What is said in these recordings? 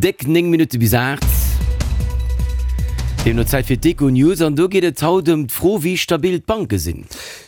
Déck 9 Minutte bis 8. Deemno Zäit fir d'Econews an do geet et haut ëm d'Fro, wéi stabil d'Banke sinn.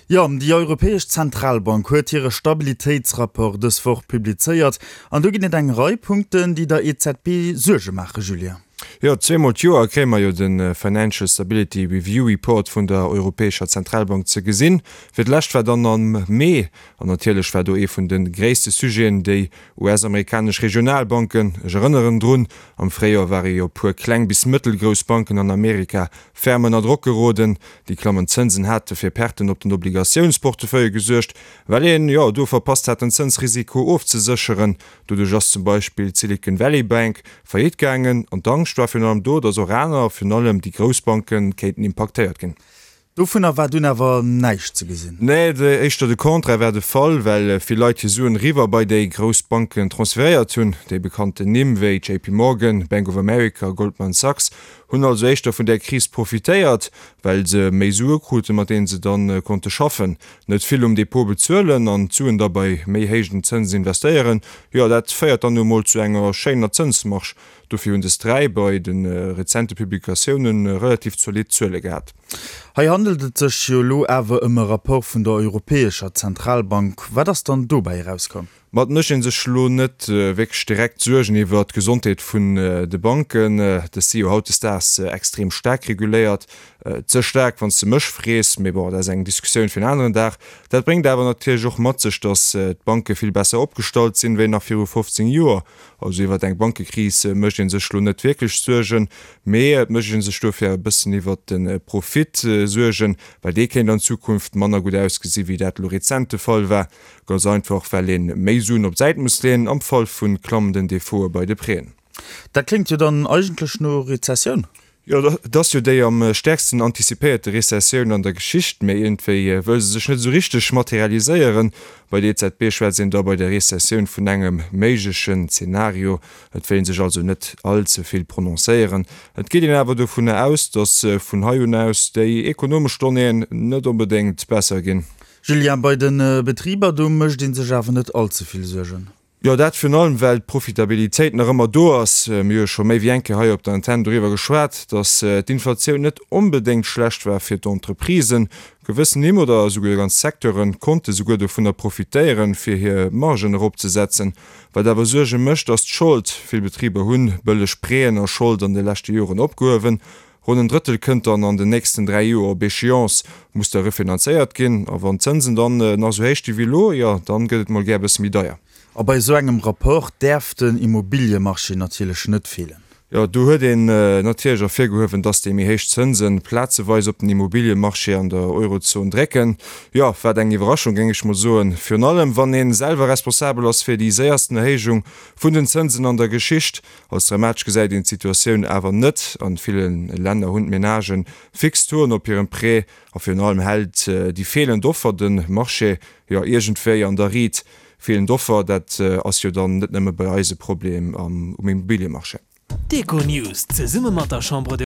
Jo, déi Europäesch Zentralbank huet hire Stabilitéitsrapport dës Woch publizéiert an do ginn et eng Rei Punkten, déi der EZB Suerge maachen, Julien. Jo, zweemol d'Joer kréie mer jo de Financial Stability Review Report vun der Europäescher Zentralbank ze gesinn. Fir d'lescht war dann am Mee, an natierlech war do ee vun de gréisste Sujeten déi US-amerikanesch Regionalbanken. Ech erënneren drun, am Fréijoer ware jo puer kleng bis mëttelgrouss Banken an Amerika ferm ënner Drock geroden. Déi klammend Zënsen hate fir Perten op den Obligatiounsportefeuille gesuergt, well een, jo, do verpasst hat den Zënsrisiko ofzesécheren. Doduerch ass zum Beispill d'Silicon Valley Bank faillite gaangen an d'Angscht war virun allem do, datt och aner, virun allem déi grouss Banken, kéinten impaktéiert ginn. Dovunner war dunn awer näischt ze gesinn. Nee, éischter de Contraire war de Fall, well vill Leit hir Suen eriwwer bei déi grouss Banken transferéiert hunn. Déi bekannten Nimm wéi JP Morgan, Bank of America, Goldman Sachs hunn also éischter vun där Kris profitéiert, well se méi Sue kruten, mat deenen se dann konnte schaffen. Net vill um Depot bezuelen an d'Suen da bei méi héijen Zënsen investéieren, jo dat féiert dann nu emol zu enger schéiner Zënsmarge. Dofir hunn des 3 bei de rezente Publikatioune relativ zolidd Zuele gehat. Hei handelt et sech jo elo awer ëm e Rapport vun der Europäescher Zentralbank. Wat ass dann dobäi erauskomm? Ma et mécht ee sech elo net wierklech direkt Suergen iwwer d'Gesondheet vun de Banken. Dës si jo hautdesdaags extrem staark reguléiert. Ze staark, wann s de mech frees, mee bon, dat ass eng Diskussioun fir en aneren Dag. Dat bréngt awer natierlech och mat sech, datt d'Banke vill besser opgestallt sinn, wéi nach viru 15 Joer. Also iwwer eng Bankekris mécht ee sech elo net wierklech Suergen, mee et mécht ee sech dofir e bëssen iwwer de Profit Suergen, well dee kéint an Zukunft manner gutt ausgesi wéi dat elo rezent de Fall war. Ganz einfach well een méi Suen op d'Säit muss leeën am Fall vun klammenden Defaute bei de Prêten. Dat kléngt jo dann eigentlech no Rezessioun. Jo, et ass jo déi am stäerksten antizipéierte Rezessioun an der Geschicht, mee iergendwéi wëll se sech net esou richteg materialiséieren. Bei der EZB schwätzt een da bei der Rezessioun vun engem méiglechen Zenario. Et wéilt een sech also net all ze vill prononcéieren. Et geet een awer dovunner aus, datt vun hei un aus déi ekonomesch Donnéeën net onbedéngt besser ginn. Julien, bei de Betriber, do mécht ee sech awer net all ze vill Suergen. Jo, dat virun allem, well d'Profitabilitéit nach ëmmer do ass. Mir hu jo scho méi wéi eng Kéier hei op der Antenn doriwwer geschwat, datt d'Inflatioun net onbedéngt schlecht war fir d'Entreprisen. Gewëssen Nimm oder esouguer ganz Secteure konnte souguer dovunner profitéieren, fir hir Margen eropzesetzen. Wat awer Suerge mécht, ass d'Schold. Vill Betriber hunn bëlleg Prêten a Schold an de leschte Joren opgehuewen. Ronn en Drëttel kënnt dann an den nächsten 3 Joer op Échéance, muss da refinanzéiert ginn. A wann d'Zënsen dann nach esou héich gi wéi elo, jo, dann gëtt et mol gär e bësse méi deier. A bei esou engem Rapport däerf den Immobiliemarché natierlech net feelen. Jo, do huet een natierlech ervirgehuewen, dass déi méi héich Zënsen plazeweis op den Immobiliemarché an der Eurozon drécken. Jo, wat eng Iwwerraschung, géing ech mol soen. Virun allem, wann ee selwer responsabel ass fir déi séiersten Erhéijung vun den Zënsen an der Geschicht. Als dramatesch gesäit een d'Situatioun awer net. An ville Länner hunn d'Menagen fix Tauxen op hirem Prêt a virun allem hält déi feelend Offer de Marché jo iergendwéi an der Riit. Feelend Offer, dat ass jo dann net nëmme bei eis e Problem um Immobiliemarché. D'Econews zesumme mat der Chambre de.